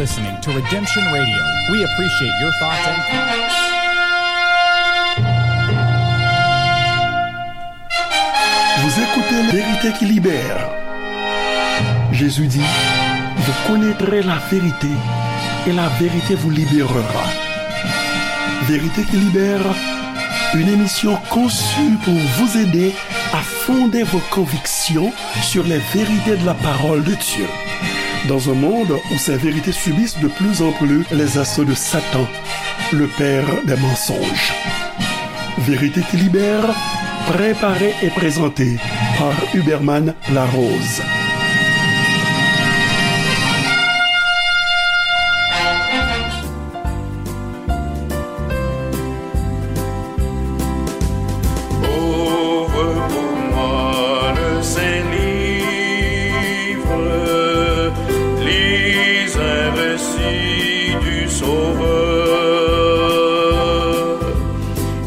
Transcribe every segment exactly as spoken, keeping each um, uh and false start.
Listening to Redemption Radio. We appreciate your thoughts and comments. Vous écoutez La vérité qui libère. Jésus dit, vous connaîtrez la vérité et la vérité vous libérera. Vérité qui libère, une émission conçue pour vous aider à fonder vos convictions sur les vérités de la parole de Dieu. Dans un monde où ces vérités subissent de plus en plus les assauts de Satan, le père des mensonges. Vérité qui libère, préparée et présentée par Huberman Larose. Ouvre pour moi le Saint-Livre, lis un récit du Sauveur.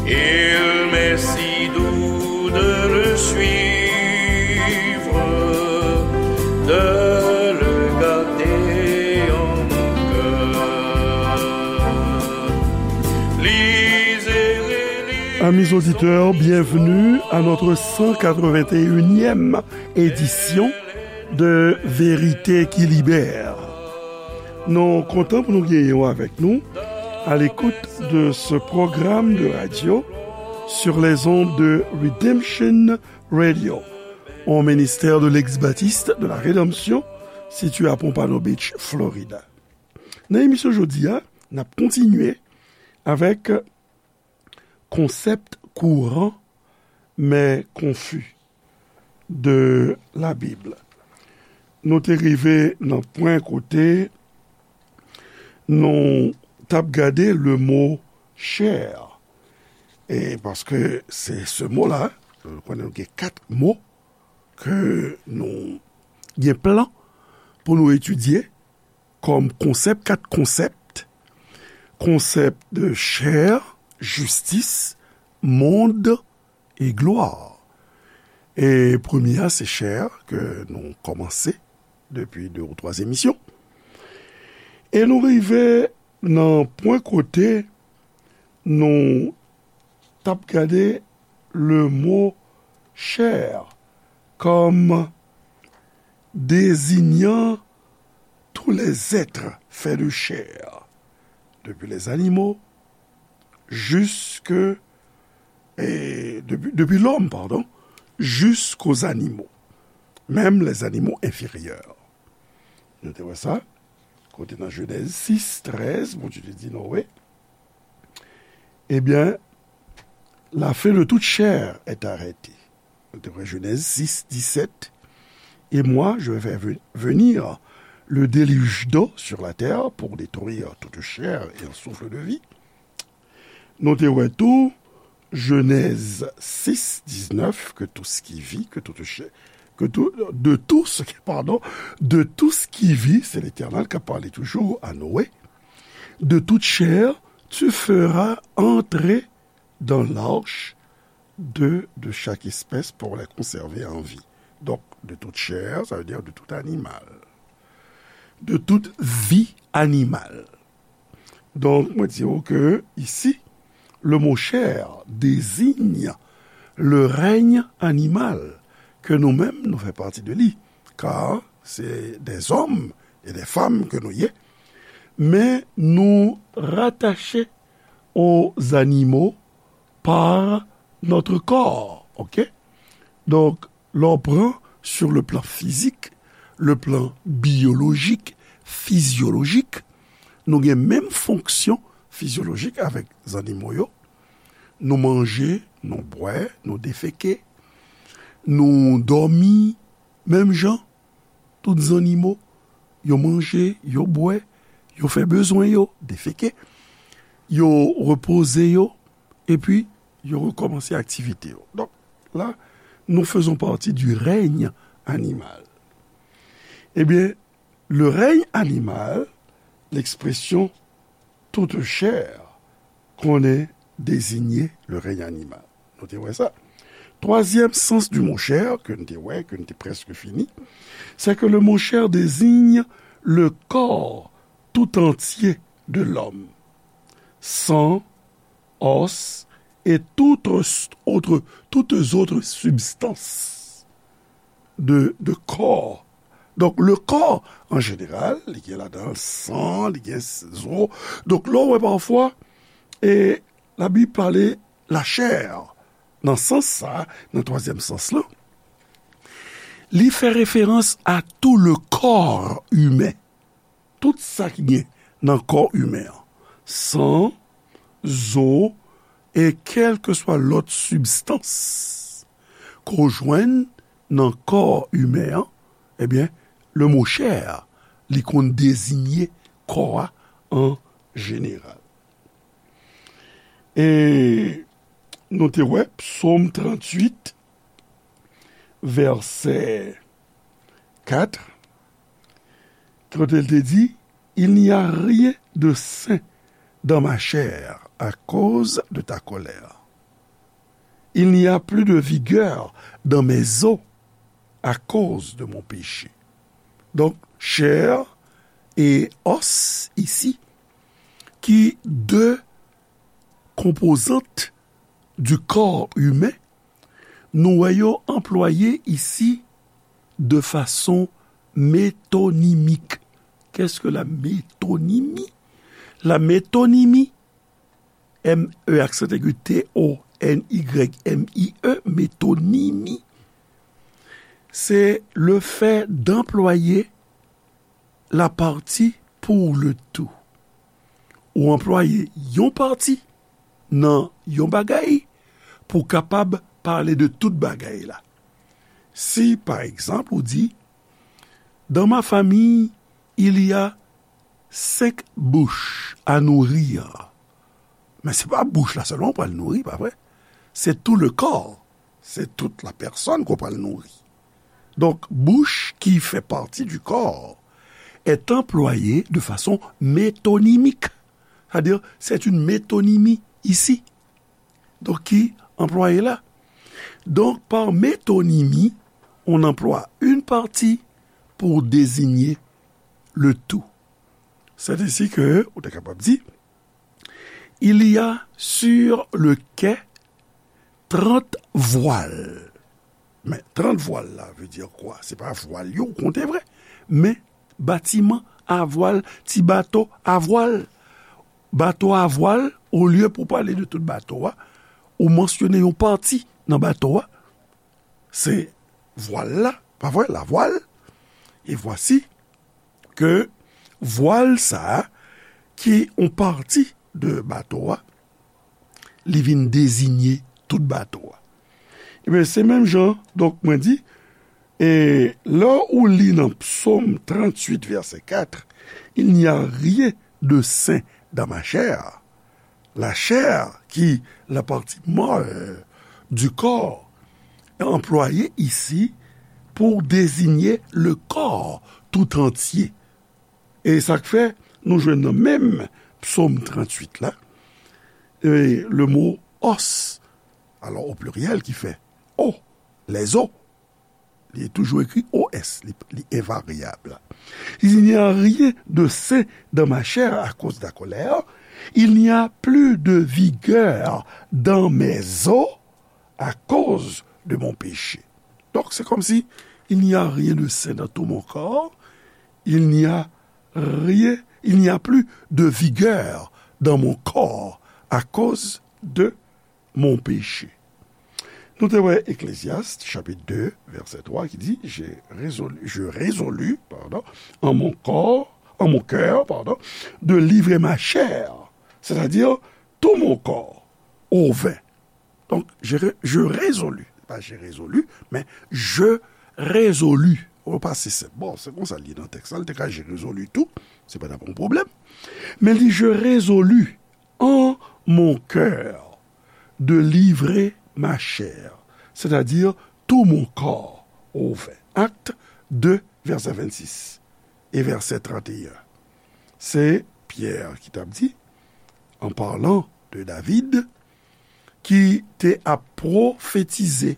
Il m'est si doux de le suivre, de le garder en mon cœur. Lisez et relisez. Amis auditeurs, bienvenue à notre cent quatre-vingt-unième édition de Vérité qui libère. Nou kontan pou nou genyen w avèk nou à l'écoute de ce programme de radio sur les ondes de Redemption Radio, au ministère de l'ex-baptiste de la Rédemption, situé à Pompano Beach, Florida. Nan emisyon jodi a, n ap kontinye avèk konsèp kouran men konfi de la Bib. Nou te rive nan pwen kote nou t ap gade le mo chè. E paske se se mo la, nou konnen nou gen kat mo ke nou gen plan pou nou etidye kòm konsèp, kat konsèp, konsèp de chè, jistis, mond e glwa. E premye a, se chè ke nou kòmanse depi de ou twa emisyon. E nou rive nan pwen kote nou t ap gade le mo chè kòm désignant tous les êtres faits de chair, depuis les animaux jusque, et depuis, depuis l'homme, pardon, jusqu'aux animaux, même les animaux inférieurs. Nou te wè sa, kote nan Jenèz sis trèz, Bondye te di Noé, eh bien, la faim de toute chair est arrêtée. Nou te wè Jenèz sis disèt, et moi, je vais faire ve- venir le déluge d'eau sur la terre pour détruire toute chair et un souffle de vie. Nou te wè tou Jenèz sis diznèf, que tout ce qui vit, que toute chair, que tout, de tout ce qui, pardon, de tout ce qui vit, c'est l'Éternel qui a parlé toujours à Noé, de toute chair, tu feras entrer dans l'arche deux de chaque espèce pour les conserver en vie. Donc, de toute chair, ça veut dire de tout animal. De toute vie animale. Donk, mwen di w ke isi, le mot chair désigne le règne animal, ke nou menm nou fè pati de li, kar se des hommes et des femmes ke nou ye, men nou ratache aux animaux par notre corps, ok? Donk, lè w pran sur le plan physique, le plan biologique, fizyolojik, nou gen menm fonksyon fizyolojik avèk zannimo yo. Nou manje, nou bwè, nou defeke, nou dòmi, menm jan tout zannimo, yo manje, yo bwè, yo fè bezwen yo, defeke, yo repoze yo, epi yo rekòmanse aktivite yo. Donk, la, nous faisons partie du règne animal. Eh bien, le règne animal, l'expression toute chair, konnen désigner le règne animal. Nou te wè sa. Troisième sens du mot chair, ke n te wè, ke n te prèske fini, c'est que le mot chair désigne le corps tout entier de l'homme, sang, os et toutes autres, toutes autres substances de, de corps. Donk, le corps, an jeneral, li gen ladan san, li gen zo. Donk, lè w wè pafwa, e Labib pale lachè, nan sans sa, nan twazyèm sans lan, li fè referans a tout le corps humain. Tout sa ki gen nan kò imen an, san, zo, e kèlkeswa lòt sibstans ke w jwenn nan kò imen an, ebyen, le mo chè a, li konn deziye kò a an jeneral. E nou te wè Psaume trente-huit, verset quatre, kote l te di, il n'y a rien de sain dans ma chair à cause de ta colère. Il n'y a plus de vigueur dans mes os à cause de mon péché. Donk, chè e os isi, ki de konpozant du corps humain, nou wè yo anplwaye isi de fason metonimik. Qu'est-ce que la métonymie? La métonymie, M E aksan egi, T O N Y M I E, metonimi, se le fait d'employer la partie pour le tout. Ou anplwaye yon pati nan yon bagay pou w kapab pale de tout bagay la. Si, pa egzanp, ou di, dans ma famille, il y a cinq bouches à nourrir. Men se pa bouch la sèlman ou pral nouri, pa vre? Se tout le corps. Se tout la personne ke w pral nouri. Donk, bouch ki fè pati du corps est employée de façon métonymique. C'est-à-dire, c'est une métonymie ici. Donk, ki anplwaye la. Donc, par métonymie, on emploie une partie pour désigner le tout. C'est ainsi que, ou te kapab di, il y a sur le quai trente voiles. Men trant vwal la vle di kwa? Se pa vwal yo w konte vre, men batiman a vwal, ti bato a vwal. Bato a vwal, olye pou pale de tout bato a, ou mansyone yon pati nan bato a, se vwal la, pa vre, la voile. Et voici ke vwal sa a, ki yon pati de bato a, li vin deziye tout bato a. Ebyen, se menm jan, donk, mwen di, e lè ou li nan Psaume trente-huit, verset quatre, il n'y a rien de sain dans ma chair. La chair, qui la partie molle du corps, est employée ici pour désigner le corps tout entier. E sa k fè nou jwenn nan menm Psaume trente-huit la, e le mo os, alors au pluriel, ki fè o, les os, li toujou ekri O S, li, li envaryab. Il n'y a rien de sain dans ma chair à cause de la colère. Il n'y a plus de vigueur dans mes os à cause de mon péché. Donc, c'est comme si il n'y a rien de sain dans tout mon corps. Il n'y a rien, il n'y a plus de vigueur dans mon corps à cause de mon péché. Nou te wè Ecclésiaste, chapitre deux, verset trois, ki di, j'ai résolu, je résolus, pardon, en mon corps, en mon cœur, pardon, de livrer ma chair, c'est-à-dire tout mon corps, au vin. Donk, je, je résolus, pa j'ai résolu, men je résolus. Ou pa se senp. Bon, se konsa l ye nan tèks la, l te ka j'ai résolu tou, se pa t ap yon pwoblèm. Men li, je résolus en mon cœur de livrer ma chair, c'est-à-dire tout mon corps au vin. Acte deux, verset vingt-six et verset trente et un. Se Pyè ki t ap di, en parlant de David, ki te ap pwofetize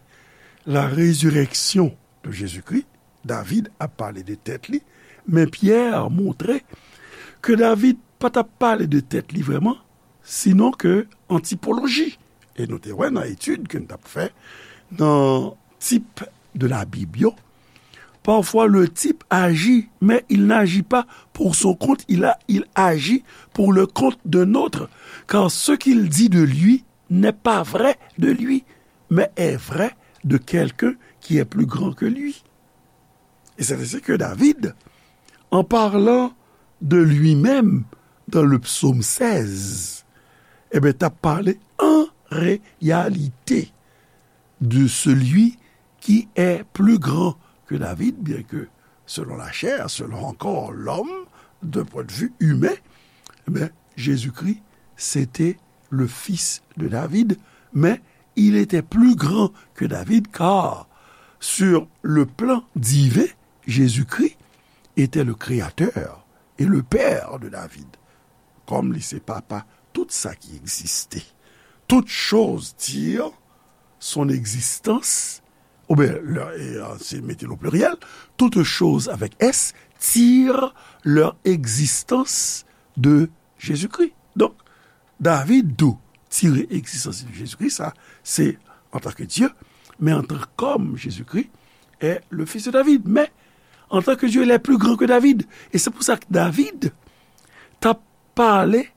la résurrection de Jésus-Christ, David ap pale de tèt li, men Pyè montre ke David pa t ap pale de tèt li vrèman, sinon ke an tipoloji. E nou te wè nan etid ke n t ap fè nan tip de Labib yo, parfois le type agit, mais il n'agit pas pour son compte, il a, il agit pour le compte d'un autre, car ce qu'il dit de lui n'est pas vrai de lui, mais est vrai de quelqu'un qui est plus grand que lui. Et c'est ainsi que David, en parlant de lui-même dans le psaume seize, eh bien, t'as parlé en réalité de celui qui est plus grand que David, bien que selon la chair, selon encore l'homme, d'un point de vue humain, eh bien, Jésus-Christ, c'était le fils de David, mais il était plus grand que David, car sur le plan divin, Jésus-Christ était le créateur et le père de David. Comme li se papa tout sa ki egziste. Toute chose tire son existence, ou bien, leur- et, euh, c'est mettre au pluriel, toute chose avec S tire leur existence de Jésus-Christ. Donc, David tou tire egzistans li de Jezikri, sa se antanke Dye, men antanke kòm, Jezikri est le fils de David. Mais en tant que Dieu, il est plus grand que David. Et c'est pour ça que David t'a parlé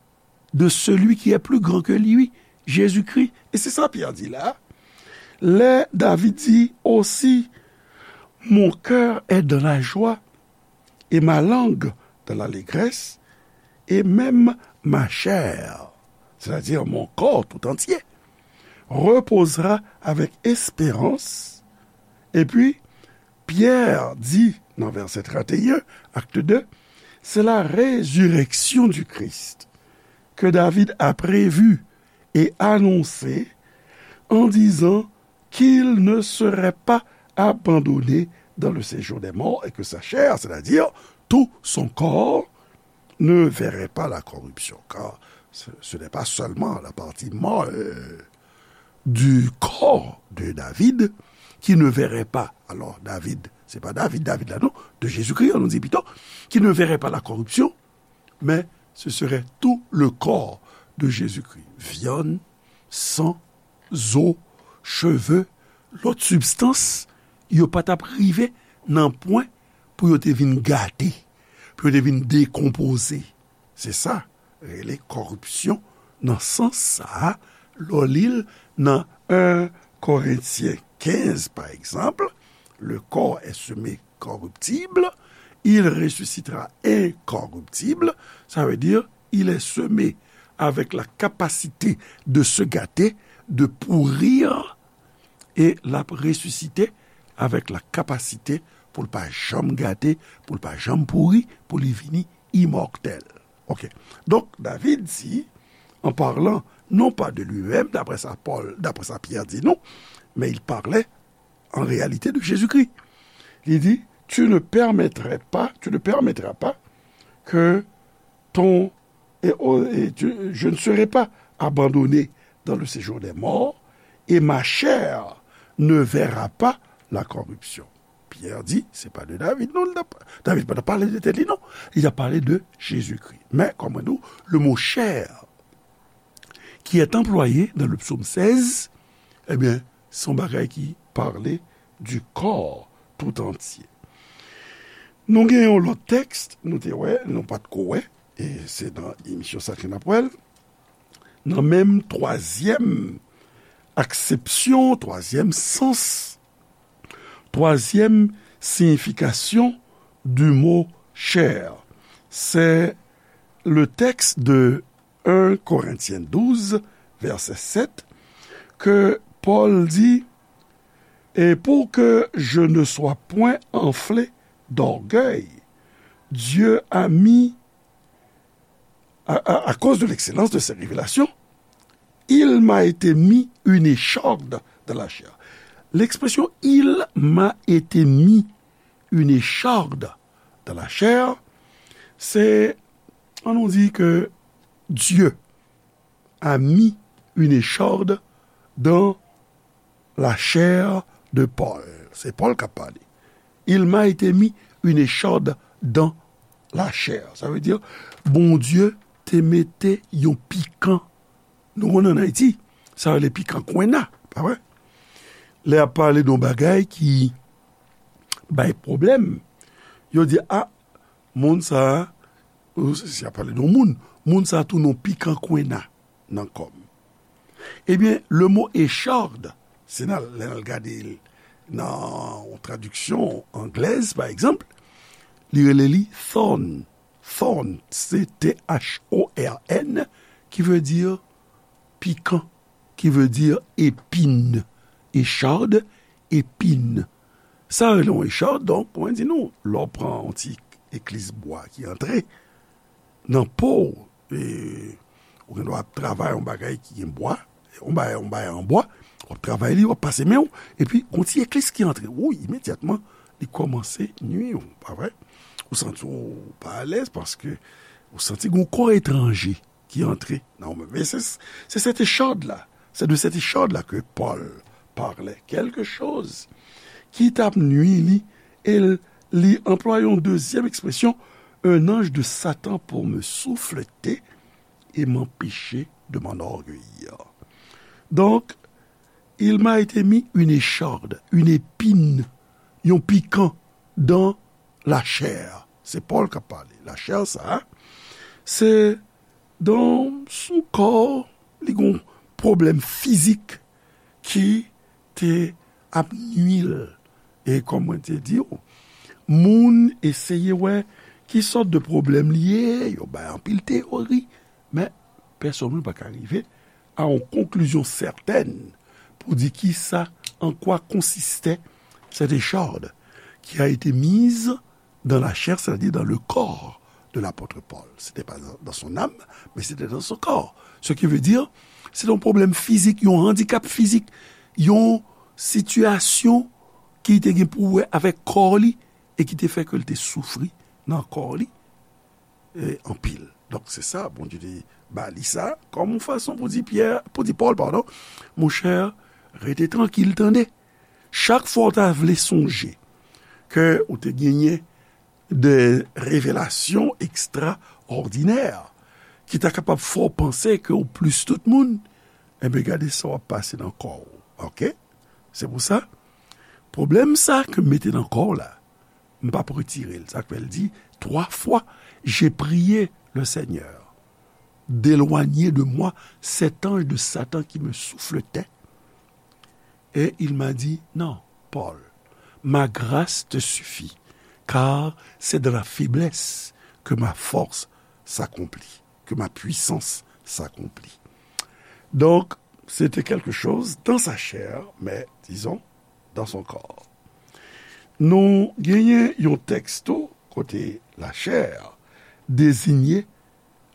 de celui qui est plus grand que lui, Jésus-Christ. Et c'est ça Pierre dit là. Lè David di osi, mon cœur est dans la joie et ma langue dans l'allégresse, et même ma chair, c'est-à-dire mon corps tout entier, reposera avec espérance. Et puis, Pierre dit dans verset trente et un, acte deux, c'est la résurrection du Christ que David a prévue et annoncée en disant qu'il ne serait pas abandonné dans le séjour des morts et que sa chair, c'est-à-dire tout son corps, ne verrait pas la corruption. Car ce, ce n'est pas seulement la partie molle du corps de David qui ne verrait pas. Alors, David, c'est pas David, David là, non, de Jésus-Christ, on nous dit plutôt, qui ne verrait pas la corruption, mais ce serait tout le corps de Jésus-Christ. Viann, san, zo, cheve, lòt sibstans, yo pa t ap rive nan pwen pou yo te vin gate, pou yo te vin dekonpoze. Se sa rele kòripsyon nan sans sa a, lè w li l nan en Korentyen kenz, pa egzanp, le corps est semé corruptible, il ressuscitera incorruptible, ça veut dire il est semé avec la capacité de se gâter, de pourrir, e l ap resisite avèk la kapasite pou l pa janm gate, pou l pa janm pouri, pou li vini imòtèl. Ok. Donk, David di, en parlant non pas de lui-même, d'après ça Paul, d'après ça Pierre dit nous, mais il parlait en réalité de Jésus-Christ. Li di, tu ne permettrais pas, tu ne permettras pas que ton, et, et tu, je ne serai pas abandonné dans le séjour des morts, et ma chair ne verra pas la corruption. Pierre di, se pa de David, non, David pa t ap pale de tèt li, non. Li t ap pale de Jezikri. Men, kòm nou, le mo chair qui est employé dans le psaume seize, ebyen, se yon bagay ki pale du corps tout entier. Nou gen yon lòt tèks, nou te wè, nou pa t ko wè, e se nan emisyon sa ke n ap wè l, nan menm twazyèm aksepsyon, twazyèm sans, twazyèm siyifikasyon du mot chair. C'est le texte de un Corinthiens douze, verset sept, que Paul dit, et pour que je ne sois point enflé d'orgueil, Dieu a mis, à, à, à cause de l'excellence de ses révélations, il m'a été mis une écharde dans la chair. L'expression il m'a été mis une écharde dans la chair, c'est, on nous dit que Dieu a mis une écharde dans la chair de Paul. Se Pòl k ap pale. Il m'a été mis une écharde dans lachè. Sa vle di, Bondye te mete yon pikan. Nou konnen ann Ayiti, sa rele pikan kwenna, pa vre? Lè y ap pale de yon bagay ki bay pwoblèm, yo di, a, moun sa a, si y ap pale de yon moun, moun sa a tounen yon pikan kwenna nan kò m. Ebyen, le mo echarde, se nan, lè n al gade l nan yon tradiksyon anglèz, pa egzanp, li rele li thorn. Thorn, se T H O R N, ki vle di pikan, ki vle di epin. Echarde, epin. Sa rele yon echarde, donk, mwen di nou, lè w pran yon ti eklis bwa ki antre nan po w, e, ou gen dwa ap travay yon bagay ki gen bwa, yon bagay, yon bagay an bwa, w ap travay li, w ap pase men w, epi yon ti eklis ki antre, wouy, imedyatman, li kòmanse nui w, pa vre? Ou santi w pa alèz paske ou santi gen yon kò etranje ki antre nan ou menm. E se, se cette écharde-là, c'est de cette écharde-là que Paul parlait. Quelque chose ki t ap nui li, e l, li anplwaye yon dezyèm ekspresyon, un ange de Satan pour me souffleter et m'empêcher de m'enorgueillir. Donc, il m'a été mis une écharde, une épine, yon pikan dans la chair. Se Pòl k ap pale. Lachè sa a, se dan son kò, li gon pwoblèm fizik ki te ap nui l. E kòm mwen te di w, moun eseye wè ki sòt de pwoblèm li ye, yo bay anpil teyori, men pèsonn moun pa ka rive a yon konklizyon sètèn pou di kisa, en quoi consistait cette écharde qui a été mise dans la chair, c'est-à-dire dans le corps de l'apôtre Paul. C'était pas dans, dans son âme, mais c'était dans son corps. Ce qui veut dire, se te yon pwoblèm fizik, yon andikap fizik, yon sitiyasyon ki te gen pou wè avèk kò li e ki te fè ke l te soufri nan kò li, e, anpil. Donk, se sa, Bondye te ba li sa kòm yon fason pou di Pyè, pou di Pòl, padon, monchè, rete trankil, tande. Chak fwa w ta vle sonje ke ou te genyen de revelasyon ekstraòdinè ki ta kapab fè w panse ke ou plis tout moun, enben, gade sa w ap pase nan kò w. Oke? Se pou sa, pwoblèm sa ke m mete nan kò w la, m p ap retire l. Sa k fè l di, trois fois, j'ai prié le Seigneur d'éloigner de moi cet ange de Satan qui me souffletait. Et il m'a dit, non, Paul, ma grâce te suffit, car c'est dans la faiblesse que ma force s'accomplit, que ma puissance s'accomplit. Donc, c'était quelque chose dans sa chair, mais disons, dans son corps. Nou genyen yon tèks tou kote lachè deziye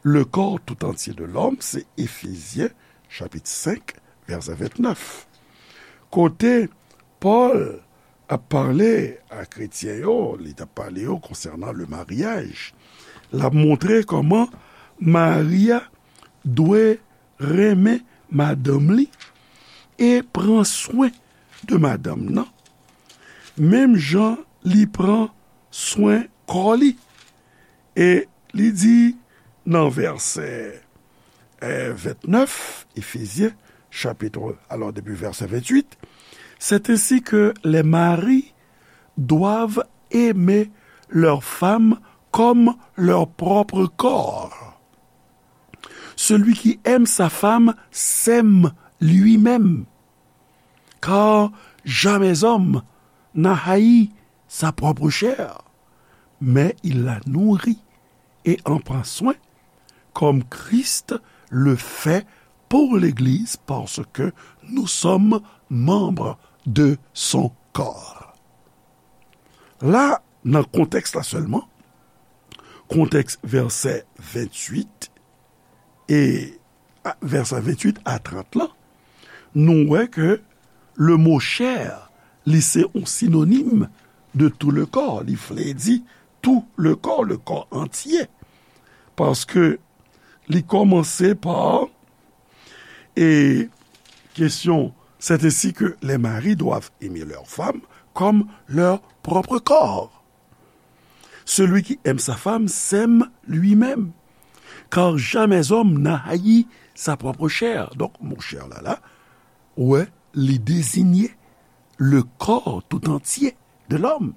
le corps tout entier de l'homme, se Efezyen, chapit senk, vèsè ventnèf. Kote Pòl ap pale a kretyen yo, li t ap pale yo konsènan le maryaj. L ap montre kòman mari a dwe renmen madanm li e pran swen de madanm nan, menm jan li pran swen kò li. E li di nan vèsè, eh, ventnèf, Éphésiens, chapitre, alors depuis verset vingt-huit, c'est ainsi que les maris doivent aimer leur femme comme leur propre corps. Celui qui aime sa femme s'aime lui-même. Car jamais homme n'a haï sa propre chair, mais il la nourrit et en prend soin, comme Christ le fait pour l'Église, parce que nous sommes membres de son corps. La, nan kontèks la sèlman, kontèks vèsè venntuit e a, vèsè venntuit a trant lan, nou wè ke le mo chair, li se yon sinonim de tout le corps. Li vle di tout le corps, le corps entier. Paske li kòmanse pa, e, kesyon, c'est ainsi que les maris doivent aimer leur femme comme leur propre corps. Celui qui aime sa femme s'aime lui-même. Car jamais homme n'a haï sa propre chair. Donk, mo chè la, la, ou wè, li dezinye le corps tout entier de l'homme.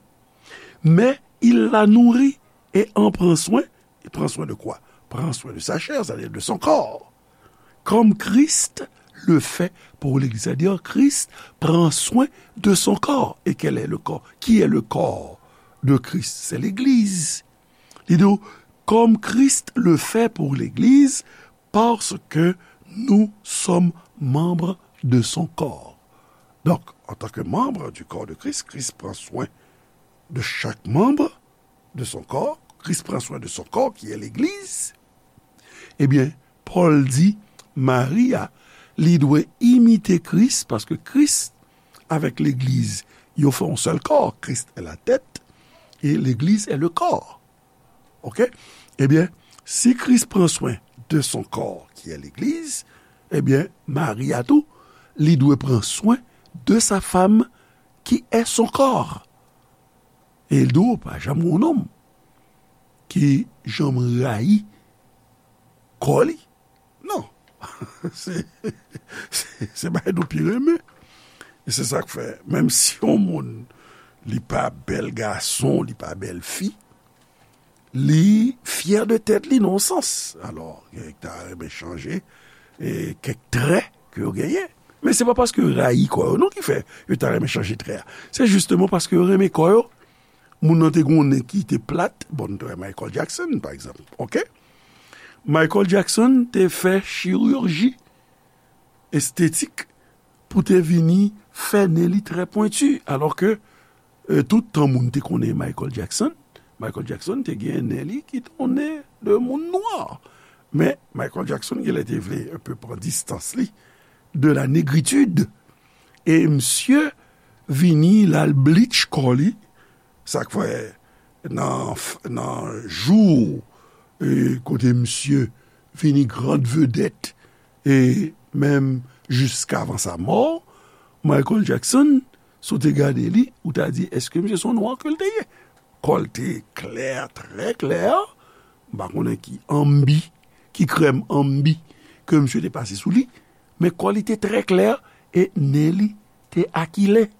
Mais il la nourrit et en prend soin. Il prend soin de quoi? Prend soin de sa chair, c'est-à-dire de son corps. Comme Christ le fait pour l'Église. C'est-à-dire, Christ prend soin de son corps. Et quel est le corps? Qui est le corps de Christ? C'est l'Église. Li di w, comme Christ le fait pour l'Église, parce que nous sommes membres de son corps. Donc, en tant que membre du corps de Christ, Christ prend soin de chaque membre de son corps, Christ prend soin de son corps qui est l'Église, ebyen, Pòl di, Mari a, li dwe imite Kris, paske Kris avèk legliz, yo fè yon sèl kò. Christ est la tête et l'église est le corps. Ok? Ebyen, si Kris pran swen de son corps qui est l'église, ebyen, Mari a tou, li dwe pran swen de sa femme qui est son corps. E l di w, pa janm gen yon nonm ki janm rayi kò li. Non. Se, se, se bagay nou pi renmen. E se sa k fè, menm si yon moun, li pa bèl gason, li pa bèl fi, li fyè de tèt li nan yon sans. Alò, gen ki ta renmen chanje, e, kèk trè ke yo genyen. Men se pa paske yo rayi kò yo non ki fè yo ta renmen chanje trè a. Se jisteman paske yo renmen kò yo. Moun nan te gen yon nen ki te plat, bon, nou te wè Michael Jackson, pa egzanp, ok? Michael Jackson te fè chirurji estetik pou te vini fè nen li trè pwenti, alò ke, e, tout tan moun te konnen Michael Jackson, Michael Jackson te gen nen li ki te yon nen de moun nwa. Men Michael Jackson, genlè te vle un peu pran distans li de la négritude. E misye vini, l al bleach kò li, sa k fè nan, nan jou, e, kote misye vini grand vedette, e menm jiskavan sa mò, Michael Jackson, si w te gade li, ou ta di, èske misye se yon nwa ke l te ye? Kò l te klè, trè klè. M pa konnen ki ambi, ki krèm ambi ke misye te pase sou li, men kò li te trè klè e nen li te akilen.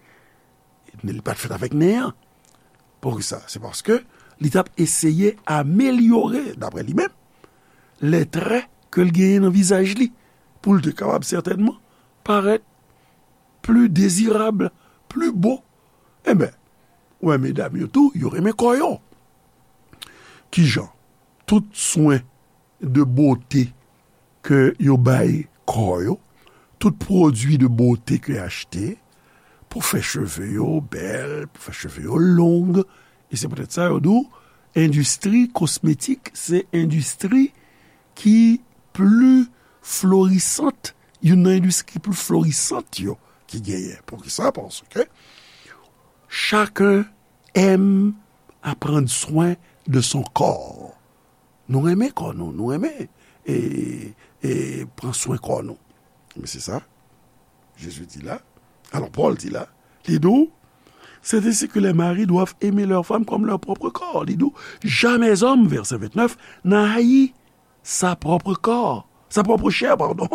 Li pa t fèt avèk nen an. Poukisa? Se paske li t ap eseye amelyore, daprè li menm, lè trè ke l genyen nan vizaj li, pou l te kapab sètènman parèt pli dezirab, pli bo. Enben, ou wè medam yo tou, yo renmen kò yo. Kijan? Tout swen de bote ke yo bay kò yo, tout pwodui de bote ke yo achte pou fè cheve yo bèl, pou fè cheve yo long. E se poutèt sa yo di w, endistri kosmetik se endistri ki pli florisant, youn nan endistri ki pli florisant yo ki genyen. Poukisa? Paske chacun aime à prendre soin de son corps. Nou renmen kò nou, nou renmen e, e pran swen kò nou. Men se sa Jezi di la. Alò, Pòl di la, li di w, c'est ainsi que les maris doivent aimer leur femme comme leur propre corps. Li di w, jamais homme, verset vingt-neuf, n'a haï sa propre corps, sa propre chair, pardon.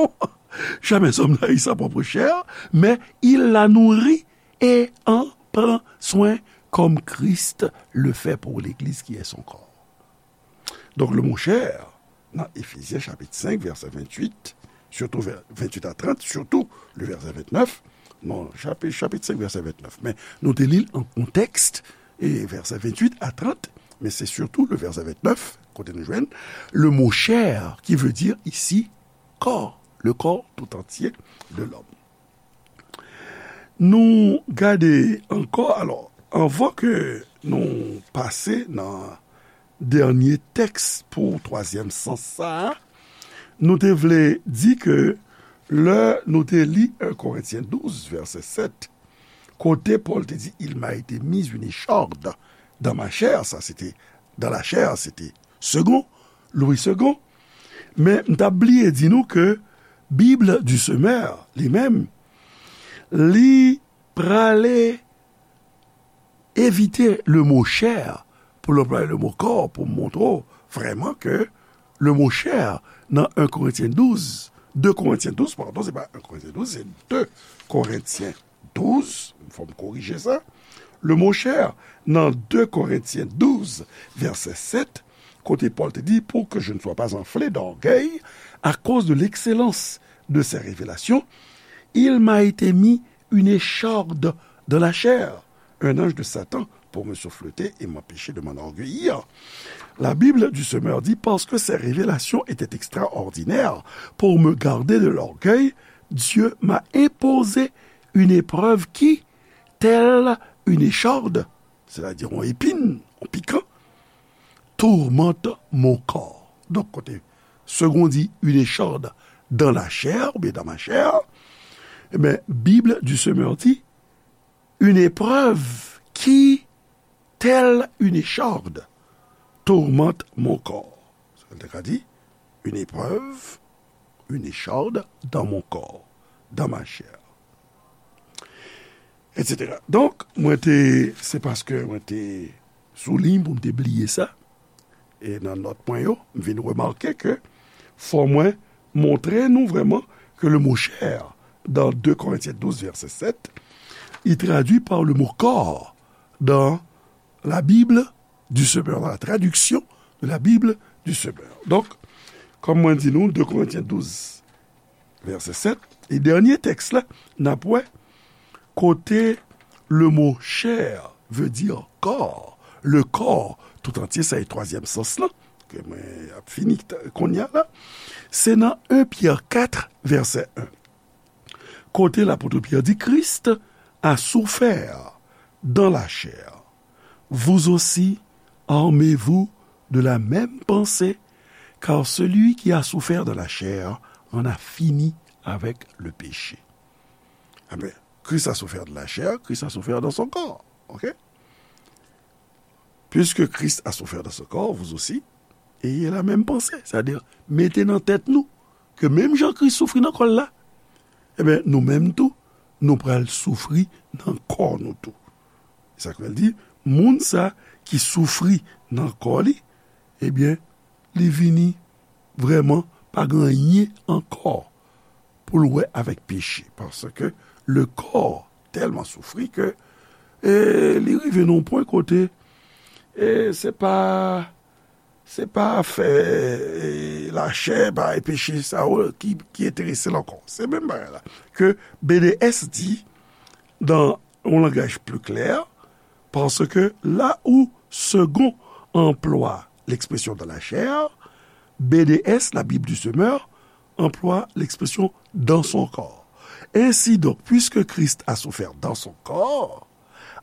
Jamais homme n'a haï sa propre chair, mais il la nourrit et en prend soin comme Christ le fait pour l'Église qui est son corps. Donk, le mo chè, nan Efezyen chapit senk, vèsè venntuit, sitou vè-, venntuit a trant, sitou le vèsè ventnèf, non, chapit, chapit senk, vèsè ventnèf. Men nou te li l an kontèks, e vèsè venntuit a trant, men se sitou le vèsè ventnèf, kote nou jwenn le mo chair, qui veut dire ici corps, le corps tout entier de l'homme. Nou gade ankò, alò, anvan ke nou pase nan dènye tèks pou twazyèm sans sa a, nou te vle di ke lè nou te li en Korentyen douz, vèsè sèt, kote Pòl te di, il m'a été mis une écharde dans ma chair, sa se te, dans la chair, se te Segond, Louis Segond. Men m t ap bliye di nou ke Bible du Semeur, li menm, li prale evite le mo chair pou l anplwaye le mo kò pou m montre w vrèman ke le mo chè nan en Korentyen douz, de Korentyen douz, padon, se pa en Korentyen douz, se de Korentyen douz, fò m korije sa. Le mo chè nan de Korentyen douz, vèsè sèt, kote Pòl te di, pour que je ne sois pas enflé d'orgueil à cause de l'excellence de ses révélations, il m'a été mis une écharde dans la chair, un ange de Satan pour me souffleter et m'empêcher de m'enorgueillir. La Bible du Semeur dit, parce que ces révélations étaient extraordinaires, pour me garder de l'orgueil, Dieu m'a imposé une épreuve qui, telle une écharde, c'est-à-dire yon épine, yon pikan, tourmente mon corps. Donk, kote segon di une écharde dans la chair, oubyen dans ma chair, ebyen, Bible du Semeur di, une épreuve qui, telle une écharde, tourmente mon corps. Sa vle di, une épreuve, une écharde dans mon corps, dans ma chair, et cetera. Donk, mwen te, se paske mwen te sou liy pou m te bliye sa, e nan nòt mwen yo, m vin remake ke fò mwen montre nou vrèman ke le mo chè dans deux Corinthiens douze, verset sept, il traduit par le mot corps dans la Bible du Semeur, dans la traduction de la Bible du Semeur. Donk, kòm mwen di nou, de Korentyen douz, vèsè sèt, e dènye tèks la, n ap wè kote le mo chè vle di kò, le corps tout entier, sa e twazyèm sans lan, ke mwen ap fini kounye a la, se nan en Pyè kat, vèsè en. Kote lapot Pyè di, Christ a souffert dans la chair. Vous aussi, armez-vous de la même pensée, car celui qui a souffert dans la chair en a fini avec le péché. Amen. Christ a souffert dans la chair, Christ a souffert dans son corps. OK? Puisque Christ a souffert dans son corps, vous aussi, ayez la même pensée. Sa vle di, mete nan tèt nou ke menm jan Kris soufri nan kò l la, ebyen, nou menm tou, nou pral soufri nan kò nou tou. Sa k fè l di, moun sa ki soufri nan kò li, ebyen, li vini vrèman pa gen anyen ankò pou l wè avèk peche. Paske le kò tèlman soufri ke, e, li rive nan yon pwen kote, e, se pa, se pa afè, e, lachè, pa e peche sa yo ki, ki enterese l ankò. Se menm bagay la. Ke B D S di, dans un langage plus clair, parce que là où Segond emploie l'expression dans la chair, B D S, la Bible du Semeur, emploie l'expression dans son corps. Ainsi donc, puisque Christ a souffert dans son corps,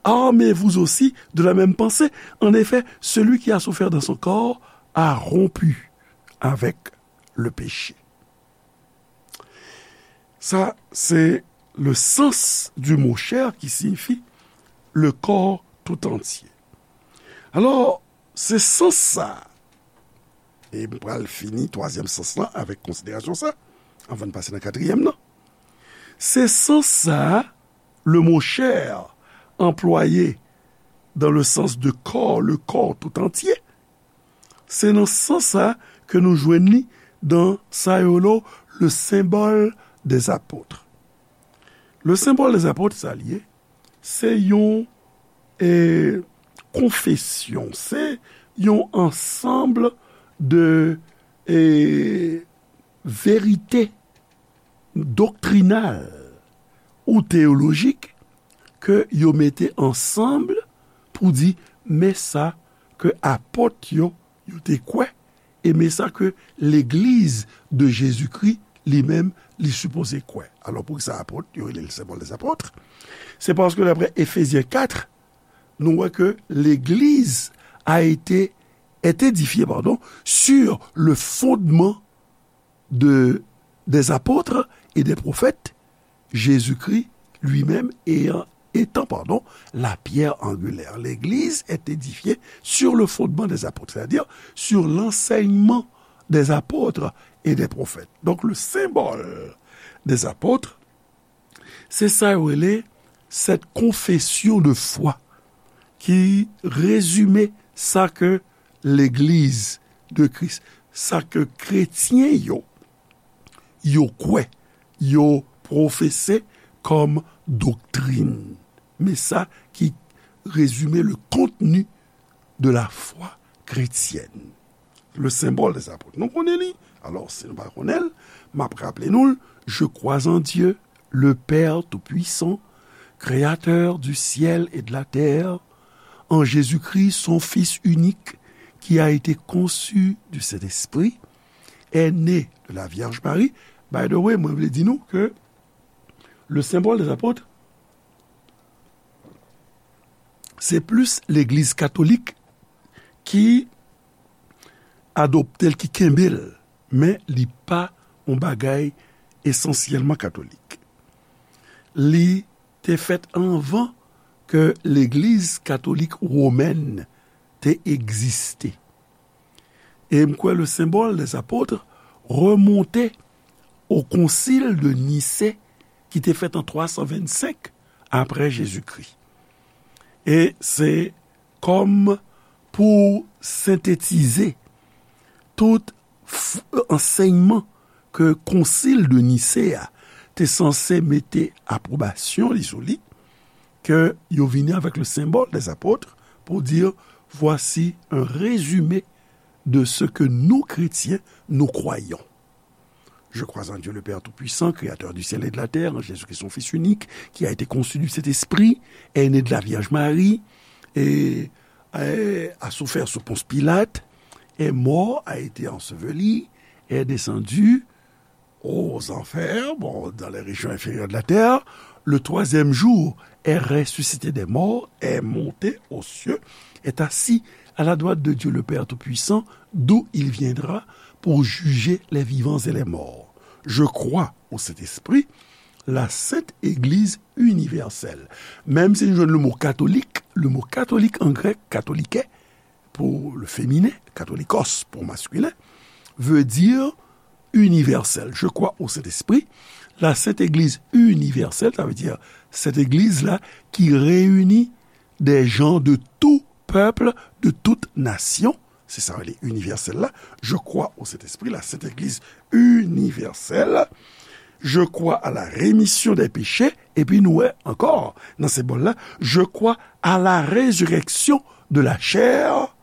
armez-vous aussi de la même pensée. En effet, celui qui a souffert dans son corps a rompu avec le péché. Sa, se le sens du mot chair qui signifie le corps tout entier. Alò, se sans sa, e m pral fini twazyèm sans lan avèk konsiderasyon sa, anvan n pase nan katriyèm nan. Se sans sa, le mot chair, employé dans le sens de corps, le corps tout entier, se nan sans sa ke nou jwenn li dans sa yo rele le symbole des apôtres. Le symbole des apôtres, sa l ye, se yon, e, konfesyon, se yon ansanm de, e, verite doktrinal ou teyolojik ke yo mete ansanm pou di, men sa ke apot yo, yo te kwè, e men sa ke legliz de Jezikri li menm li sipoze kwè. Alò, poukisa apot, yo rele l symbole des apôtres? Se paske daprè Efezyen kat, nou wè ke legliz a été, est édifiée, pardon, sur le fondement de, des apôtres et des prophètes, Jésus-Christ lui-même ayant, étant, pardon, la pierre angulaire. L'église est édifiée sur le fondement des apôtres, c'est-à-dire sur l'enseignement des apôtres et des prophètes. Donc, le symbole des apôtres, se sa yo rele cette confession de foi ki rezime sa ke legliz de Kris, sa ke kretyen yo, yo kwè, yo pwofese kòm doktrin. Men sa ki rezime le contenu de la foi chrétienne. Le symbole des apôtres. Nou konnen li. Alò, si nou pa konnen l, m ap raple nou l, Je crois en Dieu, le Père tout-puissant, créateur du ciel et de la terre, en Jésus-Christ, son Fils unique, qui a été conçu du Saint-Esprit, est né de la Vierge Marie. By the way, mwen vle di nou ke le symbole des apôtres, se plis legliz katolik ki adopte l, ki kenbe l, men li pa yon bagay esansyèlman katolik. Li te fèt anvan ke legliz katolik womèn te egziste. E m kwè le symbole des apôtres remonte au concile de Nicée ki te fèt an twa san vennsenk apre Jezikri. E se kòm pou sentetize tout f-, ansèyman ke Concile de Nicée a te sanse mete apwobasyon li sou li, ke yo vini avèk le symbole des apôtres pou di, voici un résumé de ce que nous, chrétiens, nous croyons. Je crois en Dieu le Père Tout-Puissant, créateur du ciel et de la terre, en Jésus-Christ, son Fils unique, qui a été conçu du Saint-Esprit, est né de la Vierge Marie, et, et a souffert sous Ponce Pilate, est mort, a été enseveli, est descendu aux enfers, bon, dans les régions inférieures de la terre, le troisième jour est ressuscité des morts, est monté aux cieux, est assis à la droite de Dieu le Père Tout-Puissant, d'où il viendra pour juger les vivants et les morts. Je crois au Saint-Esprit, la sainte Église universelle. Menm si nou jwenn le mo katolik, le mo katolik an grèk, katolike, pou le féminin, katolikos pou maskilen, veut dire universel. Je crois au Saint-Esprit, la Sainte Église universelle, sa vle di Sent Egliz la ki reyini des gens de tout peuple, de toute nation. Se sa yo rele inivèsèl la. Je crois au Saint-Esprit, la Sainte Église universelle. Je crois à la rémission des péchés. Epi nou wè ankò nan senbòl la, je crois à la résurrection de la chair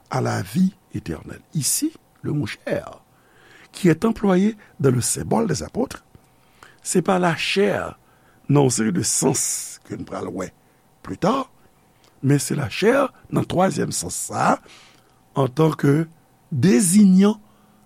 à la vie éternelle. Ici, le mot chair qui est employé dans le symbole des apôtres, se pa lachè nan yon seri de sans ke n pral wè pli ta, men se lachè nan twazyèm sans sa a, antanke désignant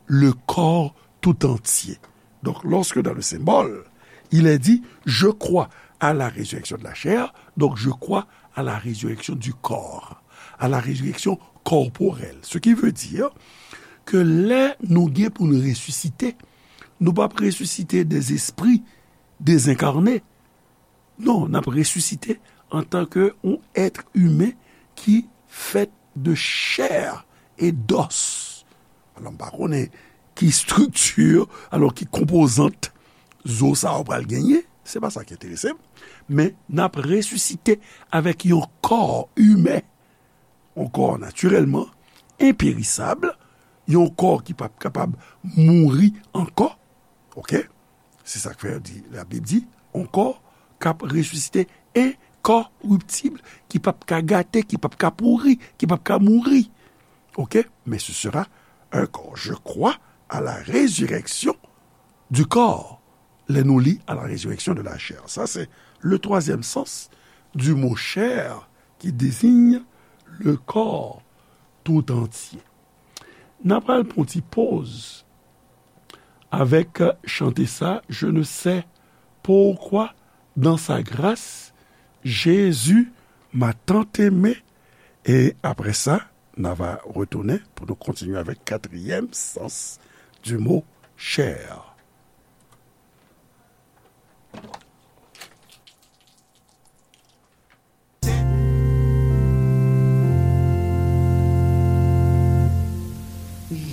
le corps tout entier. Donc, lorsque dans le symbole, il est dit, je crois à la résurrection de la chair, donc je crois à la résurrection du corps, à la résurrection corporelle. Ce qui veut dire que lè nou gen pou n resisite, nou p ap resisite des esprits désincarnés. Non, n ap resisite antanke yon èt imen ki fèt de chair et d'os. Alò, m pa konnen ki estrikti, alò, ki konpozant zo sa yo pral genyen, se pa sa ki enterese m, men n ap resisite avèk yon kò imen, yon kò natirèlman enperisab, yon kò ki p ap kapab mouri ankò. Oke? Se sa k fè yo di, Labib di, yon kò k ap resisite, enkoriptib, ki p ap ka gate, ki p ap ka pouri, ki p ap ka mouri. Oke? Mais ce sera un corps. Je crois à la résurrection du corps. Lè nou li à la résurrection de la chair. Sa se le troisième sens du mot chair qui désigne le corps tout entier. N a pral pran yon ti poz avèk chante sa, Je ne sais pourquoi dans sa grâce, Jésus m'a tant aimé. E apre sa, n a va retounen pou nou kontinye avèk katriyèm sans du mot chair.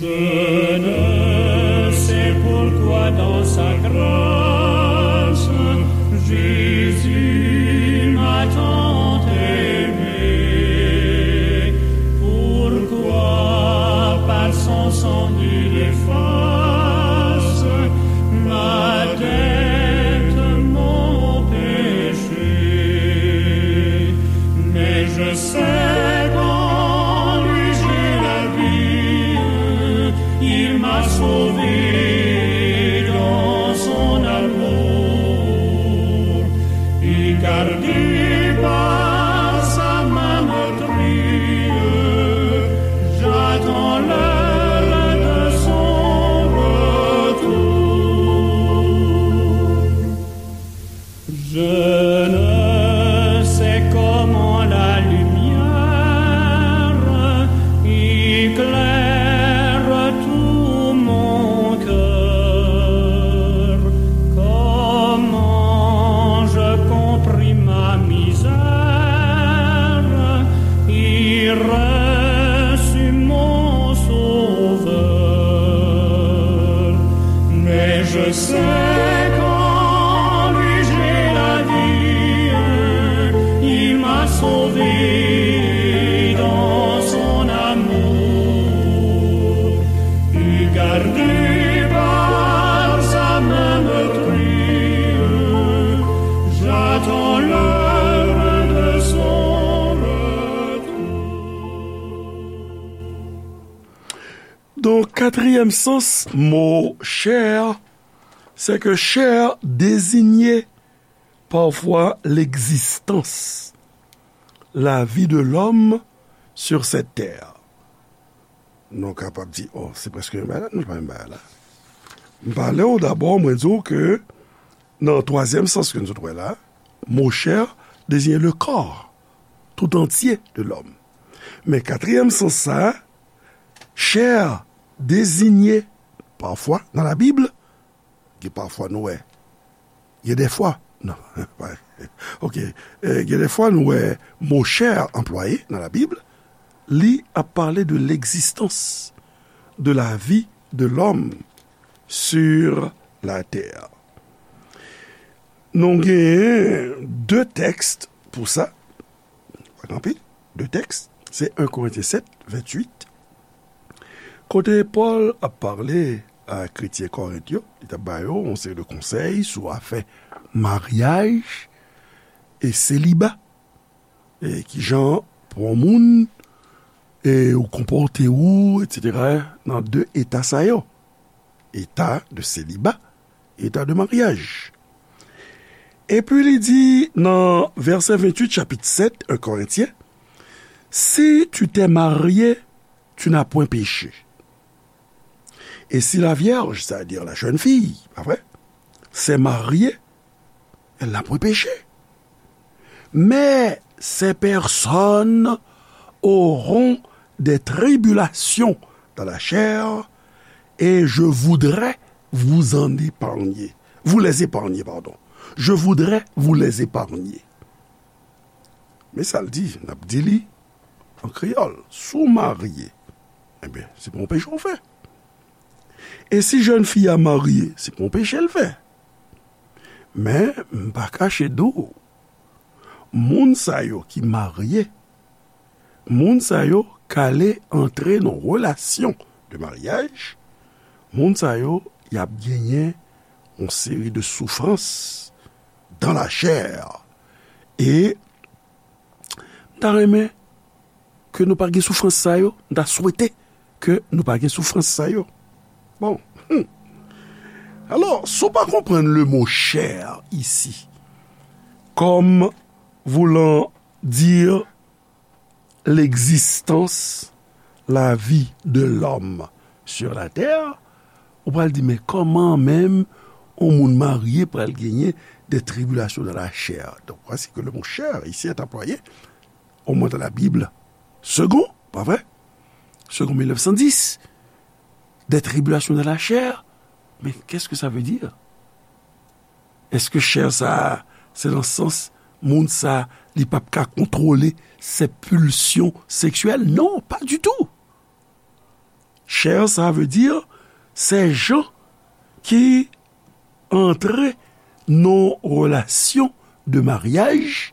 Je ne sais pourquoi dans sa grâce, Jésus m'a tant aimé. Pour Je sais qu'en lui j'ai la vie, il m'a sauvé dans son amour. Et gardé par sa main meurtrie, j'attends l'heure de son retour. Donk, katriyèm sans mo chè, c'est que chè désigne parfois l'existence, la vie de l'homme sur cette terre. Nou kapab di, oh, se prèske menm bagay la, non, se pa menm bagay la. M pale w dabò, mwen di w ke nan twazyèm sans ke nou sot wè la, mo chè désigne le corps tout entier de l'homme. Men katriyèm sans sa, chè désigne parfois dans la Bible, gen pafwa nou wè, gen dèfwa, non, ok, eh, gen dèfwa nou wè mo chè anplwaye nan la Bib, li ap pale de l'existence, de la vie de l'homme sur la terre. Nou genyen de tèks pou sa, pa gen anpil, de tèks, se en Korentyen sèt, venntuit, kote Pòl ap pale a kretyen Korent yo, li t ap ba yo yon seri de konsèy sou afè maryaj e seliba, e kijan pou yon moun, e ou konpòte ou, etsetera, nan de eta sa yo, eta de seliba, eta de maryaj. Epi li di nan vèsè venntuit, chapit sèt, en Korentyen, si tu t'es marié, tu n'as point péché. Et si la vierge, c'est-à-dire la jeune fille, pa vre, s'est mariée, elle n'a point péché. Mais ces personnes auront des tribulations dans la chair, et je voudrais vous en épargner. Vous les épargner, pardon. Je voudrais vous les épargner. Men sa l di, n ap di li an kreyòl, si w marye, ebyen, se pa yon peche w fè. E si jèn fi a marye, se pa yon peche l fè. Men, m pa kache di w, moun sa yo ki marye, moun sa yo k ale antre nan relasyon de maryaj, moun sa yo, y ap genyen yon seri de soufrans dans la chair. E m ta renmen ke nou pa gen soufrans sa yo, m ta swete ke nou pa gen soufrans sa yo. Bon. Hmm. Alors, si w pa konprann le mot chair ici, comme voulant dire l'existence, la vie de l'homme sur la terre, ou pral di, men kòman menm yon moun marye pral genyen des tribulations dans la chair? Donc, voici que le mot chair ici est employé, au moins dans la Bible, second, pas vrai? Second mille neuf cent dix, des tribulations dans la chair, mais qu'est-ce que ça veut dire? Èske chè sa a, se nan sans moun sa a, li p ap ka kontwole ses pulsions sexuelles? Non, pas du tout. Chè sa vle di, se jan ki antre nan relasyon de maryaj,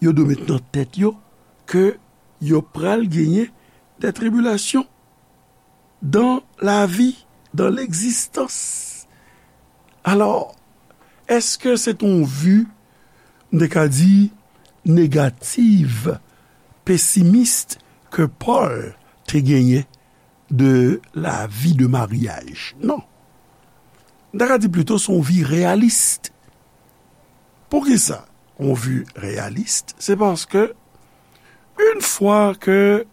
yo dwe met nan tèt yo ke yo pral genyen des tribulations dans la vie, dans l'existence. Alò, èske se t on vi, m te ka di, negative, pessimiste ke Pòl te genyen de la vie de mariage? Non. M ta ka di plito se yon vi reyalis. Poukisa yon vi reyalis? Se paske, yon fwa ke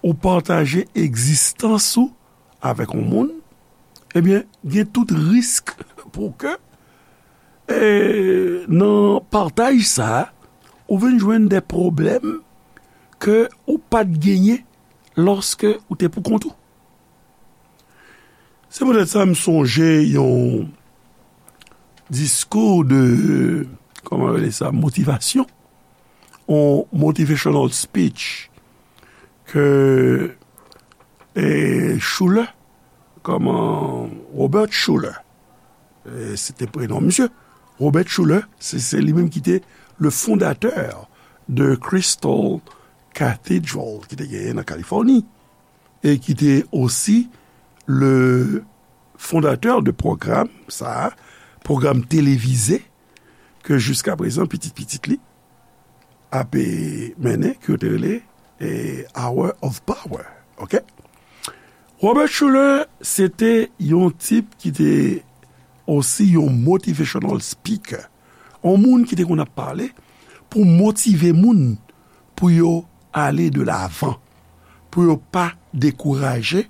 ou pataje egzistans ou avèk yon moun, ebyen, gen tout risk pou ke, e, nan pataj sa a, ou vin jwenn de pwoblèm ke ou pa t genyen lòske ou te pou kont ou. Se poutèt sa m sonje yon diskou de, kòman yo rele sa, motivasyon, yon motivational speech ke, e, Schuller, kòman, Robert Schuller, E, se te prenon misye. Robert Schuller, se, se li menm ki te le fondateur de Crystal Cathedral ki te genyen nan Kalifòni e ki te osi le fondateur de pwogram sa, pwogram televize ke jiska prezan pitit pitit li ap mennen, ke yo te rele e, Hour of Power. Ok? Robert Schuller se te yon tip ki te osi yon motivational speaker, yon moun ki te konn ap pale pou motive moun pou yo ale de lavan, pou yo pa dekouraje,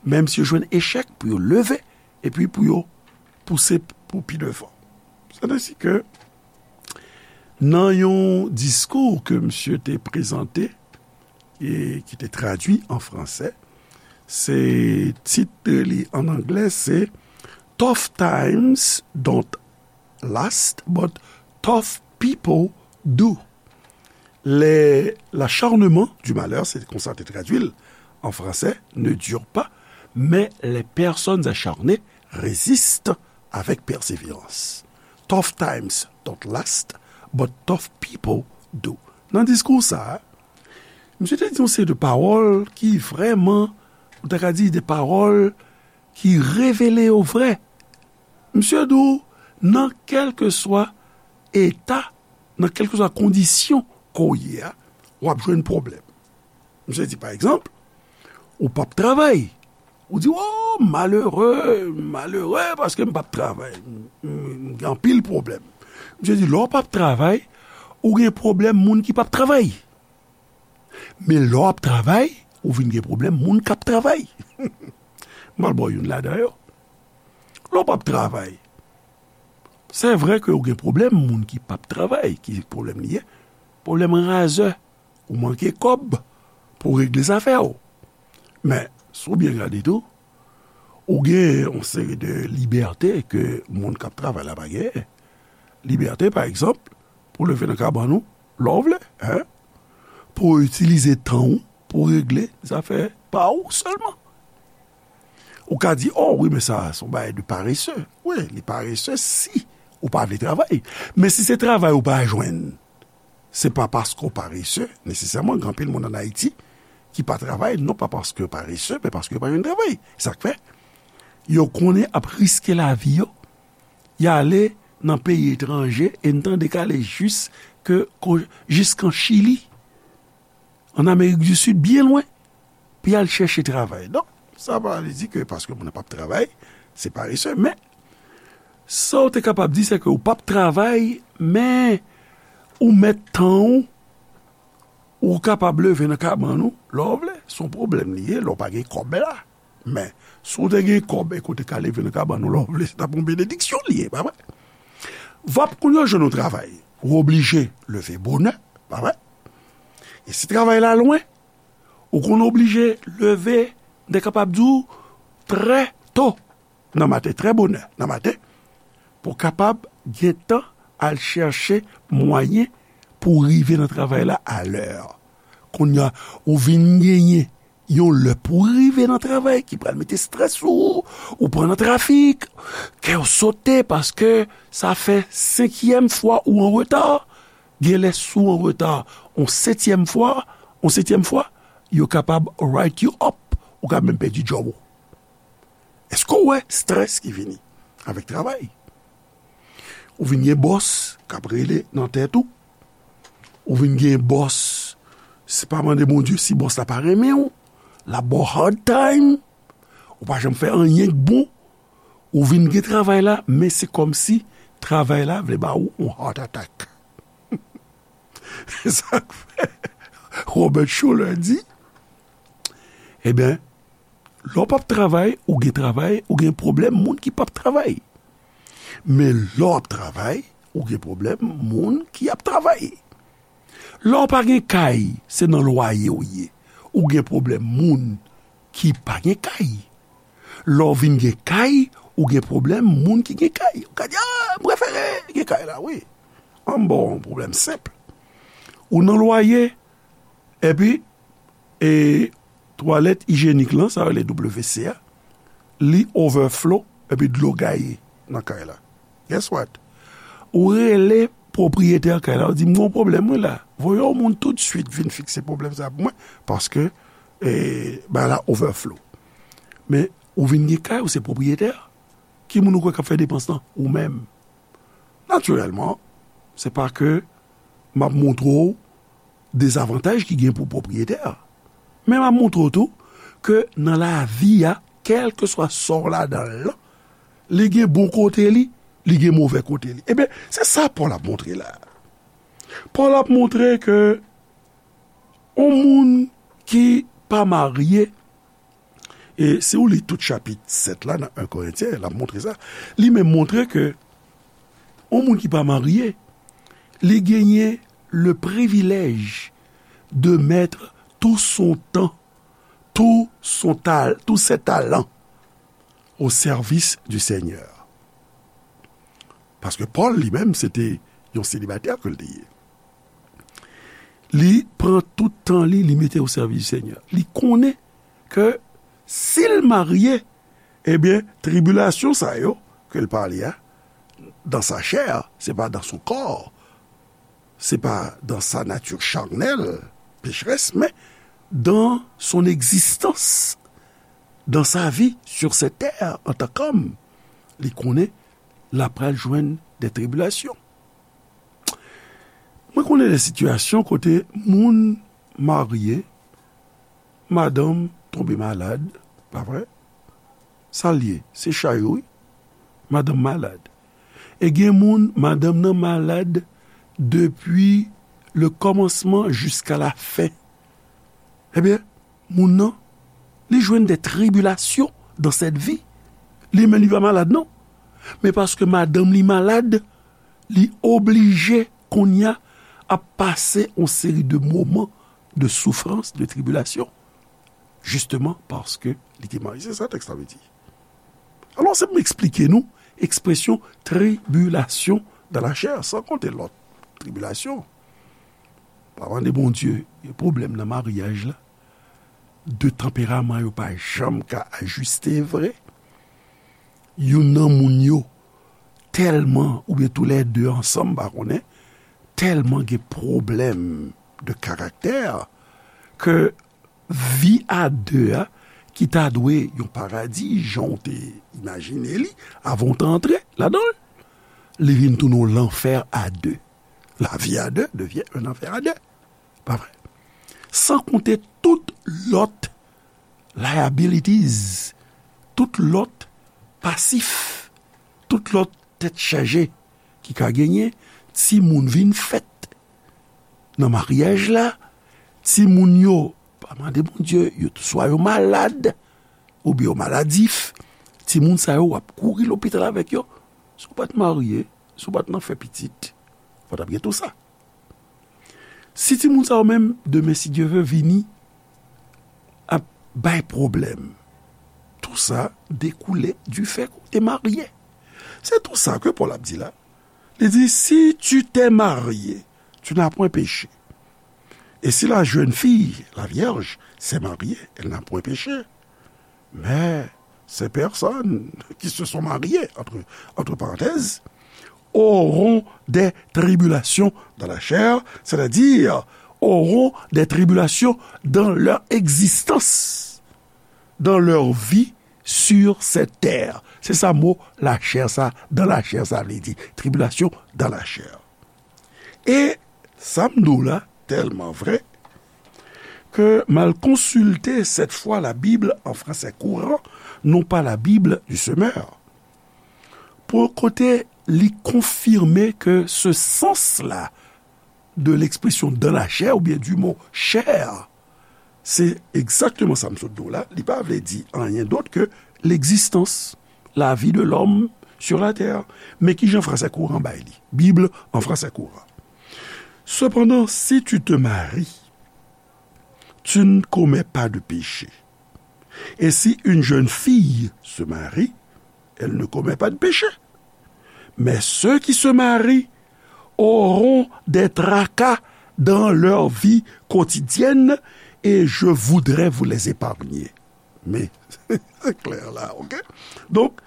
menm si yo jwenn echèk, pou yo leve, epi pou yo pouse pou pi devan. Se te si ke nan yon diskou ke misye te prezante e ki te tradui an fransè, se tit li an anglè se Tough times don't last, but tough people do. Les, l'acharnement du malheur, se konsa te tradui l an fransè, ne dure pas, mais les personnes acharnées résistent avec persévérance. Tough times don't last, but tough people do. Nan diskou sa, misye te di yon seri de pawòl ki vrèman, ou ta ka di de pawòl ki revele yo vrè. Misye di w, nan kèlkeswa eta, nan kèlkeswa kondisyon ke w ye a, w ap jwenn pwoblèm. Misye di, pa egzanp, ou p ap travay. Ou di, "O, malere, malere, paske m p ap travay. M, m, m gen anpil pwoblèm." Misye di, lè w p ap travay, ou gen pwoblèm moun ki p ap travay. Men lè w ap travay, ou vin gen pwoblèm moun k ap travay. M pral ba w youn ladan yo. Lè w p ap travay, se vre ke ou gen pwoblèm moun ki p ap travay, ki pwoblèm li ye? Pwoblèm razè, ou manke kòb pou regle zafè w. Men, si w byen gade tou, ou gen yon seri de libète ke moun k ap travay la pa genyen. Libète, pa egzanp, pou leve nan kabann ou, lè w vle, en? Pou w itilize tan w pou regle zafè pa ou sèlman. Ou ka di, "O wi, men sa, se yon bagay de parese." Wi, li parese si ou pa vle travay. Men si se travay ou pa jwenn, se pa paske w parese, nesesèman, gen anpil moun ann Ayiti ki pa travay, non pa paske yo parese, men paske yo pa jwenn travay. Sa k fè, yo konnen ap riske lavi yo, y ale nan peyi etranje, e n tande k ale jis ke, ko-, jiskan Chili, ann Amerik di Sid, byen lwen, pou y al chèche travay. Donk, sa pa vle di ke paske moun nan p ap travay, se parese, men, sa w te kapab di, se ke ou p ap travay, men ou mèt tan w, ou kapab leve nan kabann ou, lè w vle, se yon pwoblèm li ye, lè w pa gen kòb la. Men, si w te gen kòb e ke w te ka leve nan kabann ou lè w vle, se t ap yon benediksyon li ye, pa vre? V ap kounye a w jwenn yon travay, ou oblije leve bonè, pa vre? E si travay la lwen, ou konn oblije leve, m te kapab di w, trè to nan maten, trè bonè nan maten, pou w kapab gen tan al chèche mwayen pou w rive nan travay la alè. Kounye a, ou vin genyen yon lè pou w rive nan travay ki pral mete estrès sou ou, ou pran nan trafik, kè w sote paske sa fè senkyèm fwa ou an reta. Gen lè si w an reta yon setyèm fwa, yon setyèm fwa, yo kapab write you up, ou ka menm pèdi djòb ou. Èske w wè estrès ki vini avèk travay? Ou vin gen bòs k ap rele nan tèt ou. Ou vin gen bòs, se pa mande Bondye si bòs la pa renmen w, l ap ba w hard time, ou pa janm fè anyen k bon, ou vin gen travay la, men se kòmsi travay la vle ba ou yon heart attack. Se sa k fè Robert Schuller di, ebyen, lè w p ap travay, ou gen travay, ou gen pwoblèm moun ki p ap travay. Men lè w ap travay, ou gen pwoblèm moun ki ap travay. Lè w pa gen kay, se nan lwaye w ye. Ou gen pwoblèm moun ki pa gen kay. Lè w vin gen kay, ou gen pwoblèm moun ki gen kay. Ou ka di, "A, m prefere gen kay la, wi." An m ba w yon pwoblèm senp. Ou nan lwaye, epi, e, twalèt ijyenik lan, sa yo rele W C a, li overflow, epi dlo gaye. nan kay la. Guess what? Ou rele pwopriyetè kay la, ou di, "M gen yon pwoblèm, wi, la." Voye yon moun toutswit vin fikse pwoblèm sa pou mwen, paske, e, bagay la overflow. Men, ou vin gen kay, ou se pwopriyetè. Ki moun ou kwè k ap fè depans lan? Ou menm. Natirèlman, se pa ke m ap montre w dezavantaj ki gen pou pwopriyetè a. Men m ap montre w tou ke nan lavi a, kèlkeswa sa w ladan l lan, li gen bon kote li, li gen move kote li. Ebyen, se sa Pòl ap montre la. Pòl ap montre ke yon moun ki pa marye, e si w li tout chapit sèt la nan en Korentyen, l ap montre sa, li menm montre ke yon moun ki pa marye, li genyen le privilège de mettre tout son temps, tout son tal-, tous ses talents au service du Seigneur. Paske Pòl li menm, se te yon selibatè ke l te ye. Li pran tout tan li, li mete o sèvis di Senyè. Li konnen ke si l marye, ebyen, tribilasyon sa yo ke l pale a, dans sa chair, c'est pas dans son corps, c'est pas dans sa nature charnelle, pécheresse, mais dans son existence, dans sa vie sur cette terre en tant qu'homme, li konnen l ap pral jwenn de tribilasyon. Mwen konnen de sitiyasyon kote moun marye, madanm tonbe malad, pa vre? Sa l ye, se chay ou, wi. Madanm malad. E gen moun, madanm nan malad depi le kòmansman jiska la fen. Ebyen, moun nan, li jwenn de tribilasyon dans cette vie. Li menm, li pa malad, non. Men paske madanm li malad, li oblije kounye a ap pase yon seri de moman de soufrans, de tribilasyon, jisteman paske li te marye. Se sa tèks la vle di. Alò, se pou m eksplike nou ekspresyon tribilasyon dans la chair, san konte lòt tribilasyon. Pa mande Bondye, gen pwoblèm nan maryaj la. De tanperaman yo pa janm ka ajiste vre. Youn nan moun yo tèlman, oubyen toulède ansanm, pa konnen, tèlman gen pwoblèm de karaktè ke vi a de a, ki ta dwe yon paradi, jan w te imajine li, avan w te antre ladan l, li vin tounen yon lanfè a de. La vie à deux devient un enfer à deux. Pa vre? San konte tout lòt liabilities, tout lòt pasif, tout lòt tèt chaje ki ka genyen, timoun vin fèt nan maryaj la, timoun yo, pa mande Bondye, yo swa yo malad, oubyen yo maladif, timoun sa yo, w ap kouri lopital avèk yo. Si w pa t marye, si w pa t nan fè pitit, fò w t ap gen tou sa. Si timoun sa yo menm, demen, si Dye vle, vini ap bay pwoblèm, tou sa dekoule du fait ke w te marye. Se tou sa ke Pòl ap di la. Li di, si tu t'es marié, tu n'as point péché. Et si la jeune fille, la vierge, s'est mariée, elle n'a point péché. Mais ces personnes qui se sont mariées, entre, entre parenthèses, auront des tribulations dans la chair, c'est-à-dire auront des tribulations dans leur existence, dans leur vie sur cette terre. Se sa mo la chair sa, dans la chair sa vle di. Tribilasyon dans la chair. E sa m di w la, tèlman vre, ke m al konsilte cette fois la Bible en français courant, non pas la Bible du semeur. Pou kote li konfime ke ce sens-là de l'expression dans la chair oubyen du mot chair, se egzakteman sa m sot di w la, li pa vle di anyen dòt ke l'existence, la vie de l'homme sur la terre. Men kijan français courant bay li? Bible en français courant. Cependant, si tu te maries, tu ne commets pas de péché. Et si une jeune fille se marie, elle ne commet pas de péché. Mais ceux qui se marient auront des tracas dans leur vie quotidienne et je voudrais vous les épargner. Men, se klè la, ok? Donk,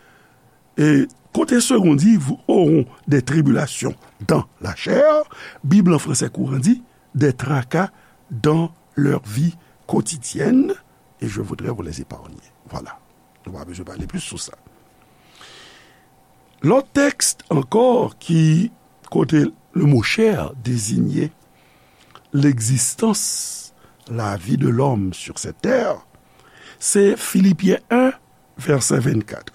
E kote Segond di, vous auront des tribulations dans la chair, Bib lan fransè kouran di, des tracas dans leur vie quotidienne, et je voudrais vous les épargner. Voilà. Nou pa bezwen pale plis sou sa. Lòt tèks ankò ki, kote le mot chair désigne l'existence, la vie de l'homme sur cette terre, se Filipyen en, vèsè vennkat.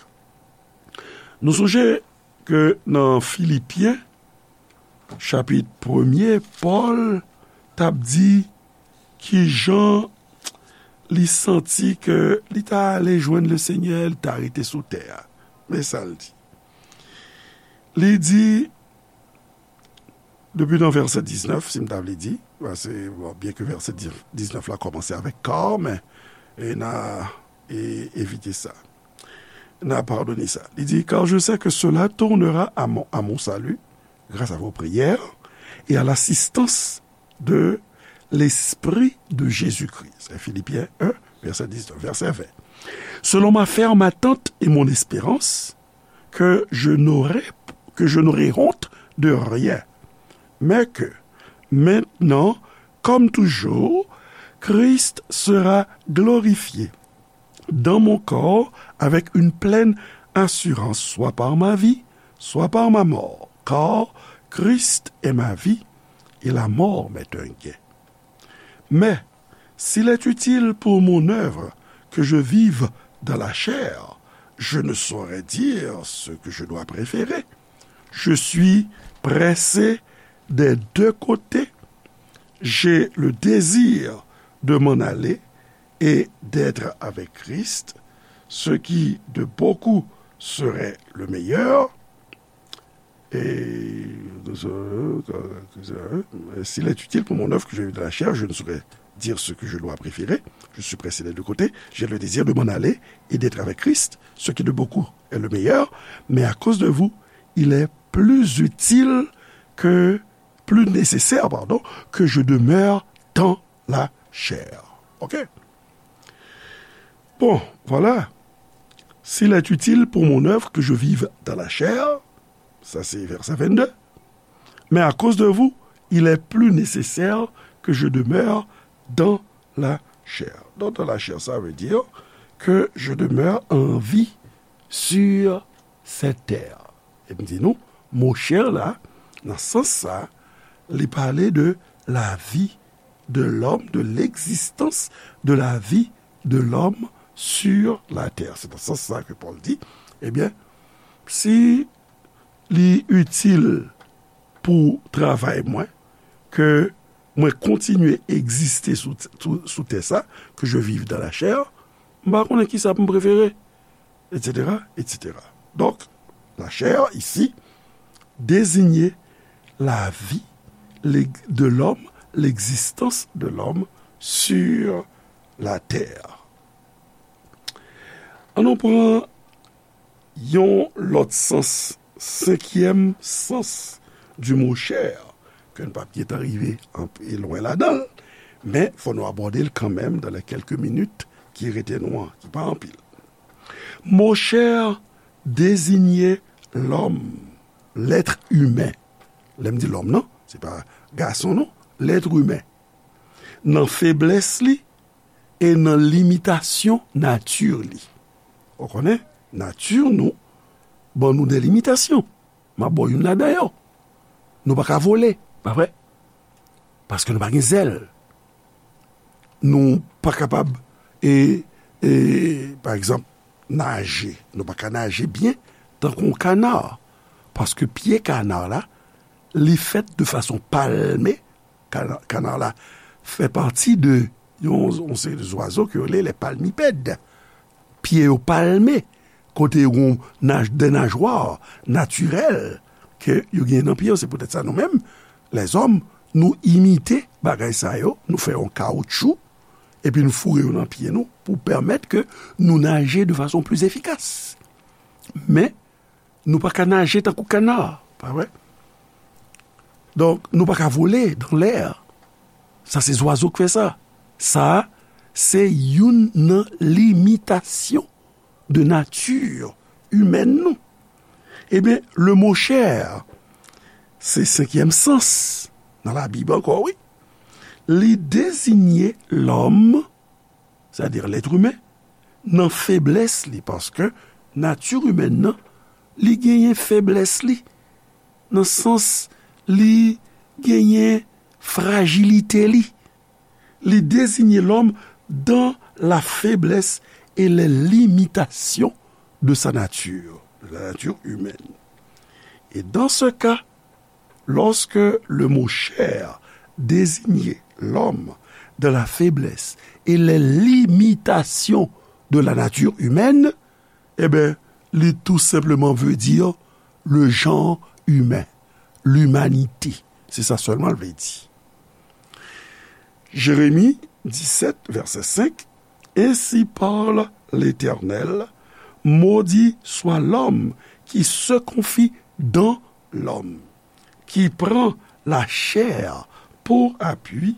Nou sonje ke nan Filipyen, chapit premye, Pòl t ap di kijan li santi ke li ta ale jwenn Lesenyè, li ta rete sou tè a. Men sa l di. Li di, depi nan vèsè diznèf, si m ta vle di, paske, bon, byen ke vèsè diznèf la kòmanse avèk car, men, e n a, e, evite sa. N a padone sa. Li di, car je sais que cela tournera à mon, à mon salut, grâce à vos prières et à l'assistance de l'Esprit de Jésus-Christ. C'est Philippiens un, verset dix-neuf, verset vingt. Selon ma ferme attente et mon espérance, que je n'aurai, que je n'aurai honte de rien, mais que, maintenant, comme toujours, Christ sera glorifié dans mon corps avec une pleine assurance, soit par ma vie, soit par ma mort. Car Christ est ma vie, et la mort m'est un gain. Mais s'il est utile pour mon œuvre que je vive dans la chair, je ne saurais dire ce que je dois préférer. Je suis pressé des deux côtés. J'ai le désir de m'en aller et d'être avec Christ, ce qui de beaucoup serait le meilleur. Et s'il est utile pour mon œuvre que je vive dans la chair, je ne saurais dire ce que je dois préférer. Je suis pressé des deux côtés. J'ai le désir de m'en aller et d'être avec Christ, ce qui de beaucoup est le meilleur. Mais à cause de vous, il est plus utile que, plus nécessaire, pardon, que je demeure dans la chair. OK? Bon, voilà. S'il est utile pour mon œuvre que je vive dans la chair, sa se vèsè vennde, mais à cause de vous, il est plus nécessaire que je demeure dans la chair. Donc, dans la chair, ça veut dire que je demeure en vie sur cette terre. E m di nou, mo chè la, nan sans sa, li pale de la vie de l'homme, de l'existence de la vie de l'homme sur la terre. Se nan sans sa ke Pòl di, ebyen, si li itil pou travay mwen, ke mwen kontinye egziste sou, sou, sou tè sa, que je vive dans la chair, m pa konnen kisa pou m prefere, et cetera, et cetera. Donc, la chair, ici, désignait la vie de l'homme, l'existence de l'homme sur la terre. An nou pran yon lòt sans, senkyèm sans du mot chair, ke n p ap gentan rive anpe lwen ladan l, men fò nou abòde l kanmenm dans les quelques minutes ki rete nou an, ki pa anpil. Mo chair désignait l'homme, l'être humain. Lè m di lòm nan, se pa gason non, l'être humain. Nan feblès li e nan limitasyon nati li. Ou konnen, nati nou ban nou de limitasyon. M ap ba w youn ladan yo. Nou pa ka vole, pa vre? Paske nou pa gen zèl. Nou pa kapab, e, e, pa egzanp, naje. Nou pa ka naje byen tankou yon kana. Paske pye kana la, li fèt de fason palme. Kana, kana la fè pati de yon, yon seri de zwazo ke yo rele les palmipèdes. Pye yo palme, kote yo gen naj, de najwa natirèl ke yo gen nan pye yo. Se poutèt sa nou menm, lèzòm, nou imite bagay sa yo, nou fè yon kawoutchou, epi nou foure yo nan pye nou pou pèmèt ke nou naje de fason pli efikas. Men, nou pa ka naje tankou kana, pa vre? Donk, nou pa ka vole dans l'air. Sa se zwazo k fè sa. Sa, se youn nan limitasyon de nati imèn nou. Ebyen, le mo chè, se senkyèm sans nan Labib ankò, wi. Li deziye lòm, sètadi lèt imen, nan feblès li, paske nati imèn nan, li genyen feblès li, nan sans li genyen frajilite li. Li désigne l'homme dans la faiblesse et les limitations de sa nature, de la nature humaine. Et dans ce cas, lorsque le mot chair désignait l'homme dans la faiblesse et les limitations de la nature humaine, ebyen, li tou senpleman vle di le genre humain, l'humanité. Se sa sèlman l vle di. Jérémie dix-sept, verset cinq, Ainsi parle l'Éternel, maudit soit l'homme qui se confie dans l'homme, qui prend la chair pour appui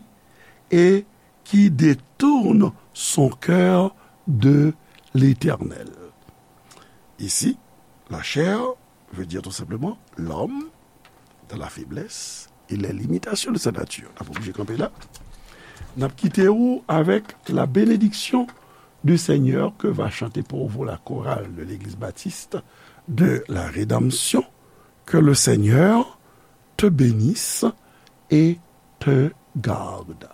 et qui détourne son cœur de l'Éternel. Ici, la chair veut dire tout simplement l'homme dans la faiblesse et les limitations de sa nature. N ap oblije kanpe la. N ap kite ou avec la bénédiction du Seigneur que va chanter pour vous la chorale de l'Église baptiste de la Rédemption. Que le Seigneur te bénisse et te garde.